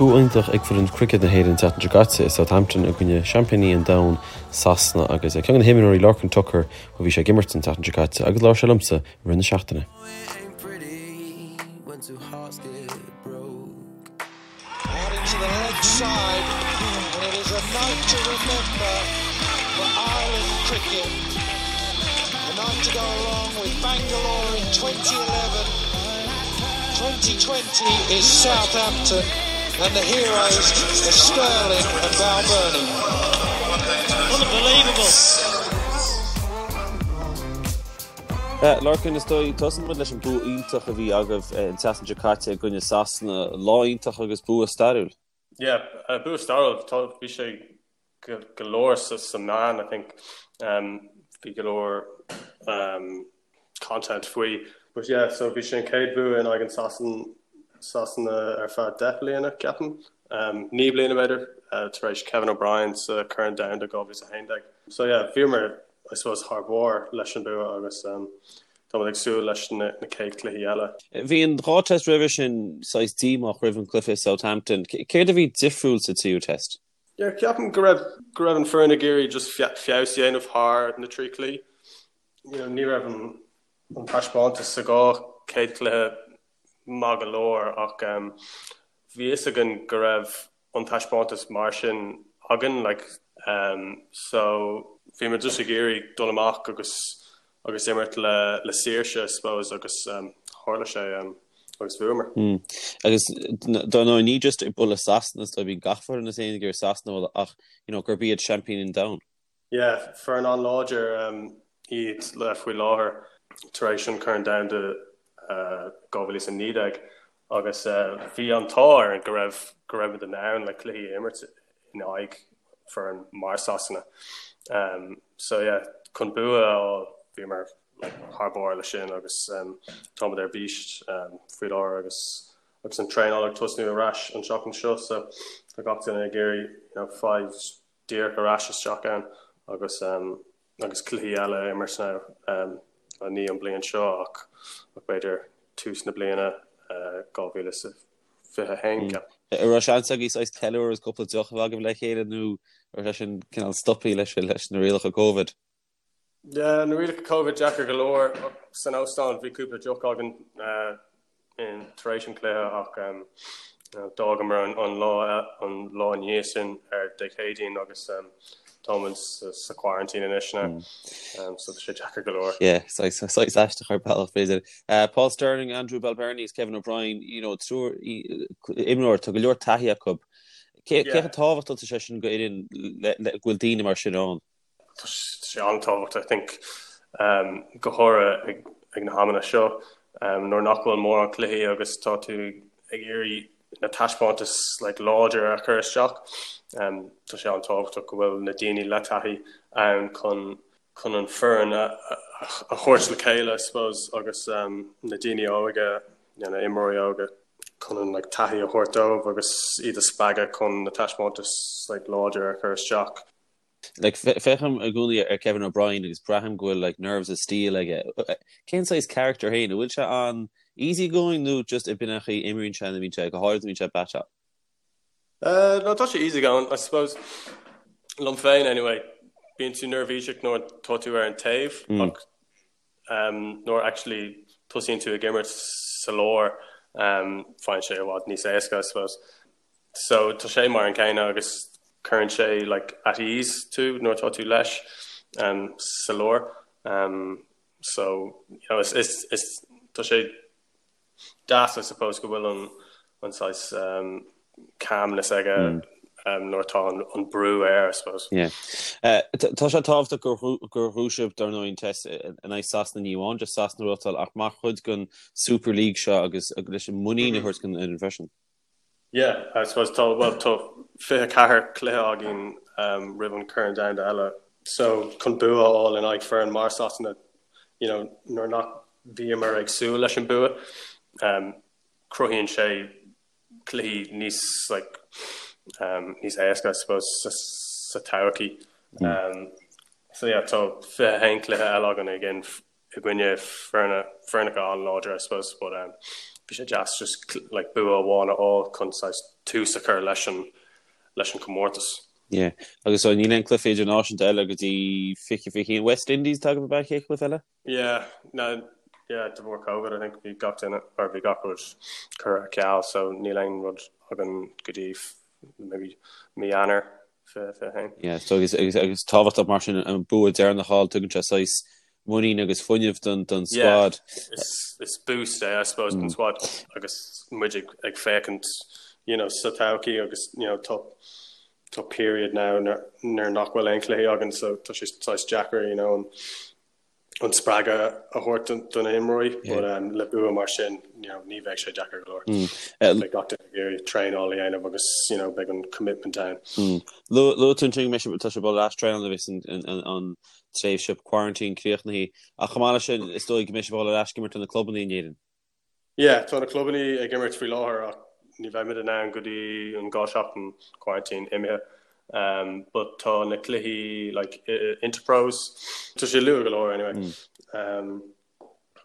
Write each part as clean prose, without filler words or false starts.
bua iontach ag foireann cruicéad na hÉireann an tseachtain seo caite i Southampton i gcoinne seaimpíní an domhain, Sasana, agus ceann de na himreoirí, Lorcan Tucker, ó bhí sé ag imirt an tseachtain seo caite agus labhair sé liomsa i rith na seachtaine. Lorcan, is dóigh, tosóidh muid leis an bua iontach a bhí agaibh an tseachtain seo caite i gcoinne Sasana. Lá iontach agus bua stairiúil. Yeah, bua stairiúil. Tá, bhí sé go leor sa sa meán, I think. Bhí go leor content faoi. But yeah, so bhí sé an chéad bua in aghaidh an Sasan, Sasana ar feadh 10 bliana, ceapaim. 9 bliana b'fhéidir, tar éis Kevin O'Brien sa Corn Domhanda 2011. So yeah, bhíomar, I suppose, thar barr leis an bua agus táimid ag súil leis na chéad cluichí eile. Bhí an dá test roimhe sin saghas díomách roimh an cluiche i Southampton. Céard a bhí difriúil sa tríú test? Yeah, ceapaim go raibh go raibh an foireann ag iarraidh just feabhas a dhéanamh thar na trí cluichí. You know, ní raibh an an taispeántas sa dhá chéad cluiche maith go leor ach bhí fhios againn go raibh an taispeántas mar sin againn like so bhí muid just ag iarraidh dul amach agus agus imirt le le saoirse I suppose agus tharla sé agus bhuamar. Agus dar ndóigh ní just ag bualadh Sasana is dóigh bíonn gach foireann is aon ag iarraidh Sasana a bhualadh ach you know gurb iad seaimpíní an domhain. Yeah, foireann an-láidir iad le faoi láthair tar éis an Corn Domhanda 2019 agus bhí an t-ádh orainn go raibh go raibh muid in ann like cluichí a imirt in aghaidh foireann mar Sasana. So yeah, chun bua a fháil bhíomar like thar barr leis sin agus táimid ar bís faoi láthair agus agus an traenáil ag tosnú ar ais an tseachtain seo so tá gach duine ag iarraidh you know fáil díreach ar ais isteach ann agus agus cluichí eile a imirt now ní an bliain seo ach b'fhéidir tús na bliana 2021 ceapaim. An raibh seans agaibh saghas ceiliúradh agus cúpla deoch a bheith agaibh le chéile nó an raibh sé sin cineál stoptha leis leis na rialacha Covid? Yeah, na rialacha Covid deacair go leor. San óstán bhí cúpla deoch againn in tar éis an chluiche ach d'fhágamar an lá an lá ina dhiaidh sin ar Dé Céadaoin agus táimid sa quarantine anois now. So tá sé deacair go leor. Yeah, saghas aisteach ar bealach b'fhéidir. Paul Stirling, Andrew Balbirnie agus Kevin O'Brien, you know, triúr imreoir, tá go leor taithí acu. Cé chomh tábhachtach atá sé sin go fhoireann go bhfuil daoine mar sin ann? Tá sé an-tábhachtach, I think, go háirithe ag na hamanna seo nuair nach bhfuil mórán cluichí agus tá tú ag iarraidh na taispeántais like láidir a chur isteach. Tá sé an-tábhachtach go bhfuil na daoine le taithí ann chun chun an foireann a thabhairt le chéile, I suppose, agus na daoine óga, na imreoirí óga chun an like taithí a thabhairt dóibh agus iad a spreagadh chun na taispeántais like láidir a chur isteach. Like, féachaim i gcónaí ar Kevin O'Brien agus braithim go bhfuil like nerves of steel aige. Cén saghas character féin? An bhfuil sé an easy going nó just b'in an chaoi a imríonn sé nuair a bhíonn sé, go háirid nuair a bhíonn sé ag baiteáil? No, tá sé easy going, I suppose. Liom féin anyway, bíonn tú neirbhíseach nuair tá tú ar an taobh ach nuair actually tosaíonn tú ag imirt sa lár, faigheann sé i bhfad níos éasca, I suppose. So tá sé mar an céanna agus cuireann sé like at ease tú nuair atá tú leis sa lár. So you know is is is tá sé deas I suppose go bhfuil an an saghas calmness aige nuair atá an brú air I suppose. Yeah. Tá sé tábhachtach gur gur bhuaigh sibh dar ndóigh an test in aghaidh Sasana ní amháin just Sasana a bhuachtáil ach mar chuid den Super League seo agus leis an muinín a thabhairt don fhoireann freisin. Yeah, I suppose tá, bhuel, tá 24 cluiche againn roimh an Corn Domhanda eile so chun bua a fháil in aghaidh foireann mar Sasana, you know, nuair nach bhíomar ag súil leis an bua, cruthaíonn sé cluichí níos like níos éasca I suppose sa, sa todhchaí. So yeah, tá 21 cluiche eile againn again i gcoinne foirne, foirneacha an-láidir I suppose but. Bhí sé deas just like bua amháin a fháil chun saghas tús a chur leis an leis an comórtas. Yeah. Agus so níl aon cluiche idirnáisiúnta eile go dtí 2021 West Indies tá agaibh ab ea an chéad chluiche eile? Yeah, no, yeah, de bharr Covid I think bhí gach duine or bhí gach rud curtha ar ceal so níl aon rud againn go dtí maybe mí Eanáir 21. Yeah, so agus, agus, agus tábhachtach mar sin an bua deireanach a fháil tugann sé saghas muinín agus fuinneamh don, don squad. Yeah, is, is boost é I suppose don squad agus muid ag, ag féachaint you know, sa todhchaí agus you know, tá tá period now nuair, nuair nach bhfuil aon chluichí againn so tá sé saghas deacair you know, an, an spreagadh a thabhairt do na himreoirí but le bua mar sin you know ní bheidh sé deacair go leor. Beidh gach duine ag iarraidh traenáil a dhéanamh agus you know beidh an commitment ann. Luaigh tú ansin go mbeidh sibh, tá sibh ag dul ar ais traenáil nuair a bheas an tréimhse quarantine críochnaithe ach chomh maith leis sin is dóigh go mbeidh sibh ag dul ar ais ag imirt do na clubanna in Éirinn. Yeah, tá na clubanna ag imirt faoi láthair ach ní bheimid in ann go dtí an 2 seachtain quarantine imithe. Um, but tá na cluichí like Interpros, tá sé luath go leor anyway. Um,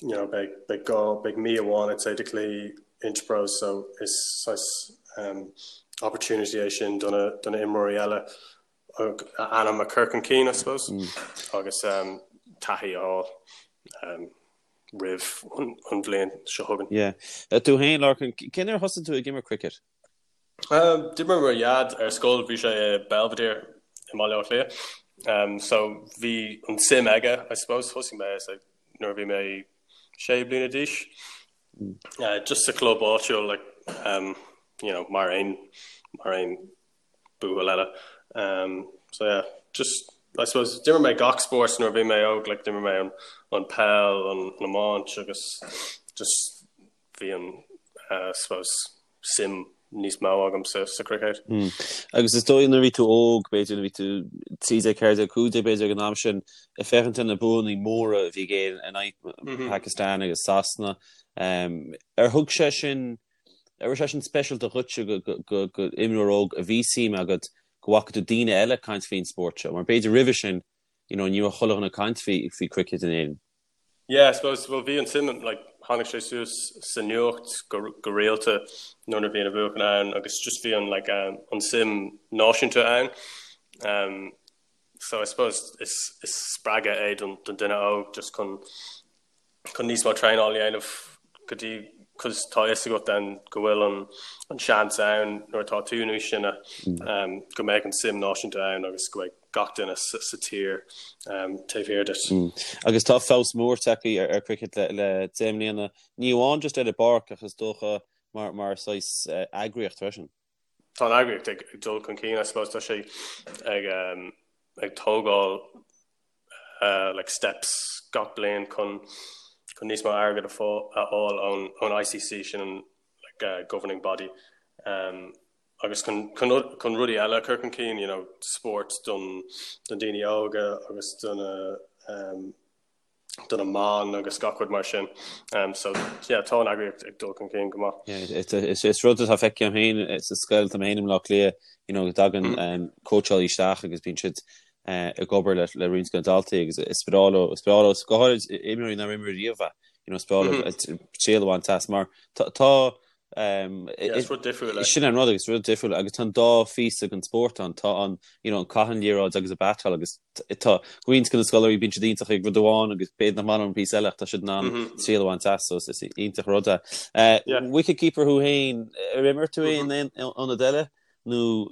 you know, beidh, beidh gá, beidh mí amháin I'd say de cluichí Interpros so is saghas um, opportunity é sin do na, do na imreoirí eile a ainm a chur chun cinn I suppose agus um, taithí a fháil. Um, roimh an bhliain seo chugainn. Yeah. Tú féin, Lorcan, cén uair a thosaigh tú ag imirt cricket? D'imir mo dhaid ar scoil, bhí sé i Belvedere i mBaile Átha Cliath. Um, so bhí an suim aige, I suppose, thosaigh mé like, nuair a bhí mé sé bliana d'aois. Uh, just sa club áitiúil, like, um, you know, mar aon mar aon buachaill eile. Um, so yeah, just I suppose d'imir mé gach spórt nuair a bhí mé óg, like d'imir mé an, an peil, an, an iomáint agus just bhí an uh, suppose suim níos mó agam sa, sa cricket. Mm. Agus is dóigh nuair a bhí tú óg, b'fhéidir nuair a bhí tú 13, 14, 15 b'fhéidir ag an am sin, ag féachaint ar na buanna móra a bhí ag Éirinn in aghaidh mm -hmm. Pakistan agus Sasana. Um, ar thug sé sin An raibh sé sin speisialta dhuitse go imreoir óg a bhí suim agat go bhfaca tú daoine eile ag caint faoin spórt seo? Mar b'fhéidir roimhe sin, you know, ní raibh chuile dhuine ag caint faoi faoi cricket in Éirinn. Yeah, I suppose, well bhí an suim, like, tháinig sé suas sa nuacht go go rialta nuair a bhí na buachan ann agus just bhí an like um, an suim náisiúnta ann. Um, so I suppose is is spreagadh é don don duine óg just chun chun níos mó traenáil a dhéanamh go dtí cos tá fhios agat then go bhfuil an an seans ann nuair atá tú níos sine um, go mbeidh an suim náisiúnta ann agus go mbeidh gach duine sa, sa tír um, taobh thiar duit. Mm. Agus tá feabhas mór tagtha ar, ar cricket le, le 10 mbliana, ní amháin just ar an bpáirc ach is dócha mar, mar saghas uh, eagraíocht freisin. Tá an eagraíocht ag, ag dul chun cinn, I suppose, tá sé ag, um, ag tógáil like steps gach bliain chun chun níos mó airgead a fháil ón ón ICC sin an like uh, governing body um, agus chun chun chun rudaí eile a chur chun cinn you know spórt don don daoine óga agus don um, do na mban agus gach rud mar sin. Um, so yeah, tá an eagraíocht ag dul chun cinn go maith. Yeah, is, is rud atá feicthe agam féin sa scoil tá mé féin i mBleá Cliath, you know, go dtagann mm. um, cóitseálaí isteach agus bíonn siad ag obair le roinnt de na daltaí agus is breá leo, is breá leo, go háirid imreoirí nár imir riamh é, you know, is breá leo triail a bhaint as mar tá Is rud difriúil é. Sin an rud agus rud difriúil agus tá an dá phíosa den spórt ann, tá an you know, an caitheamh an liathróid agus an batáil agus tá roinnt de na scoláirí bíonn siad iontach ag rud amháin agus b'fhéidir nach maith leo an píosa eile ach tá siad in ann triail a bhaint as so is iontach rud é. Wicketkeeper thú féin, ar imir tú in aon ionad eile? nó?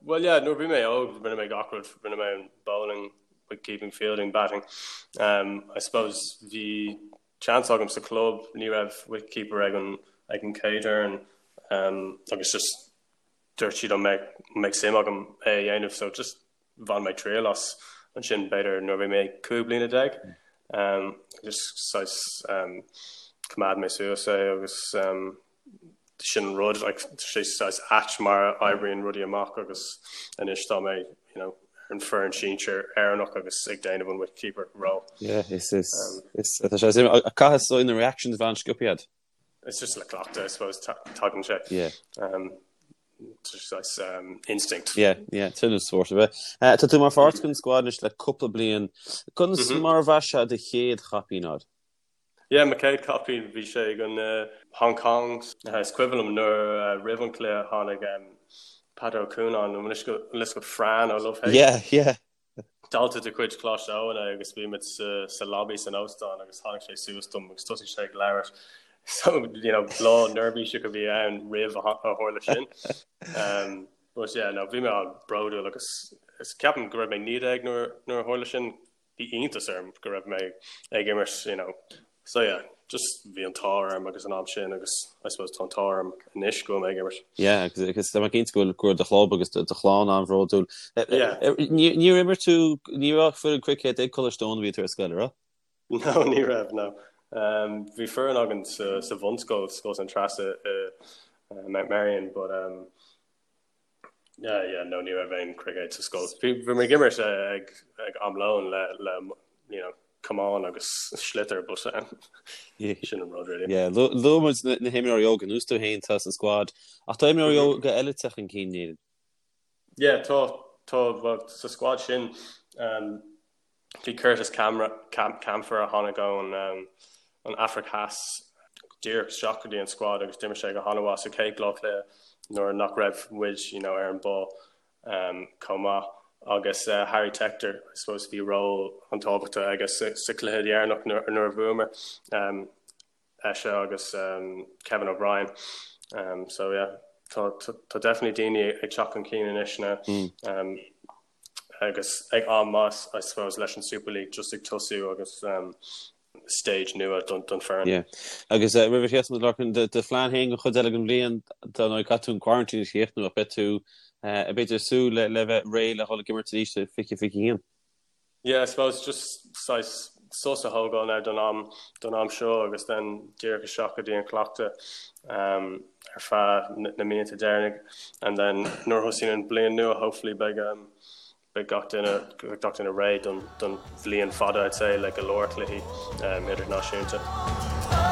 Bhuel yeah, nuair a bhí mé óg rinne mé gach rud, rinne mé an bowling, wicketkeeping, fielding, batting. Um, I suppose bhí chance agam sa club, ní raibh wicketkeeper ag an ag an chéad fhoireann um, agus just dúirt siad an mbeidh mbeidh suim agam é a dhéanamh so just bhain mé triail as ansin b'fhéidir nuair a bhí mé 15 bliana. Um, just saghas um, choimeád mé suas é agus um, sin an rud, like, sé saghas ait mar a oibríonn rudaí amach agus anois tá mé, you know, ar an foireann sinsir Éireannach agus ag déanamh an wicketkeeper role. Yeah, is is is tá sé suim caithfidh so na reactions a bheith an-sciobtha agat. It's just le cleachtadh, I suppose, tagann sé. Yeah. Um, just saghas um, instinct. Yeah, yeah, sin an spórt a bheith. Uh, tá tú mar pháirt den squad anois le cúpla bliain. Conas mm -hmm. mar a bheas sé do chéad chaipín agat? Yeah, mo chéad caipín bhí sé ag an uh, Hong Kong. Is cuimhin liom nuair uh, roimh an cluiche tháinig um, Peadar Ó Cuanáin an bhfuil fhios agat Fran ó Love Hate. Yeah, yeah. Dalta de chuid Choláiste Eoin é agus bhí muid sa, sa lobby san óstán agus tháinig sé suas dom agus thosaigh sé ag labhairt. So, you know, lá neirbhíseach a bhí ann roimh a tharla sin. Um, but yeah, no, bhí mé an-bhródúil agus is ceapaim go raibh mé 19 nuair, nuair a tharla sin. Bhí iontas orm go raibh mé ag imirt, you know. So yeah, just bhí an t-ádh orm agus an am sin agus I suppose tá an t-ádh orm anois go bhfuil mé ag imirt. Yeah, agus agus tá mé cinnte go bhfuil go raibh do chlub agus do chlann an-bhródúil. Yeah. Níor imir tú, ní raibh foireann cruicéid ag Coláiste Eoin nuair a bhí tú ar scoil, raibh? No, ní raibh, no. Um, bhí foireann againn sa, sa bhunscoil, Scoil San Treasa i uh, Mount Merrion, but um, Yeah, yeah, no, ní raibh aon cruicéad sa scoil. Bhí bhí mé ag imirt ag ag am lóin le le you know, camán agus sliotar but um, sin an rud really. Yeah, luaigh muid na, na himreoirí óga, ar nós tú féin atá sa squad, ach tá imreoirí óga eile ag teacht chun cinn, níl? Yeah, tá tá well, sa squad sin um, Bhí Curtis Campher a tháinig ón an Afraic Theas díreach isteach go dtí an squad agus d'imir sé go han-mhaith sa chéad dhá chluiche nuair nach raibh muid you know, ar an ball um, chomh maith. Agus uh, Harry Tector, I suppose, bhí ról an-tábhachtach aige sa, sa chluiche dheireanach nuair, nuair a bhuamar. Um, eisean agus Kevin O'Brien. So yeah, tá tá definitely daoine ag teacht chun cinn anois now. Um, agus ag am maith I suppose leis an Super League just ag tosú agus um, stage nua don, don foireann. Yeah. Agus uh, roimh a chríochnú Lorcan, do, do phlean féin don chuid eile den bhliain dar ndóigh caithfidh tú an quarantine a chríochnú ach beidh tú uh, b'fhéidir ag súil le, le bheith réidh le dhul ag imirt arís i 2021. Yeah, I suppose just saghas sos a thógáil now don am don am seo agus then díreach isteach go dtí an cleachtadh um, ar feadh na míonna deireanacha and then nuair a thosaíonn an bliain nua hopefully beidh um, beidh gach duine beidh gach duine réidh don don bhliain fada I'd say le go leor cluichí um, idirnáisiúnta.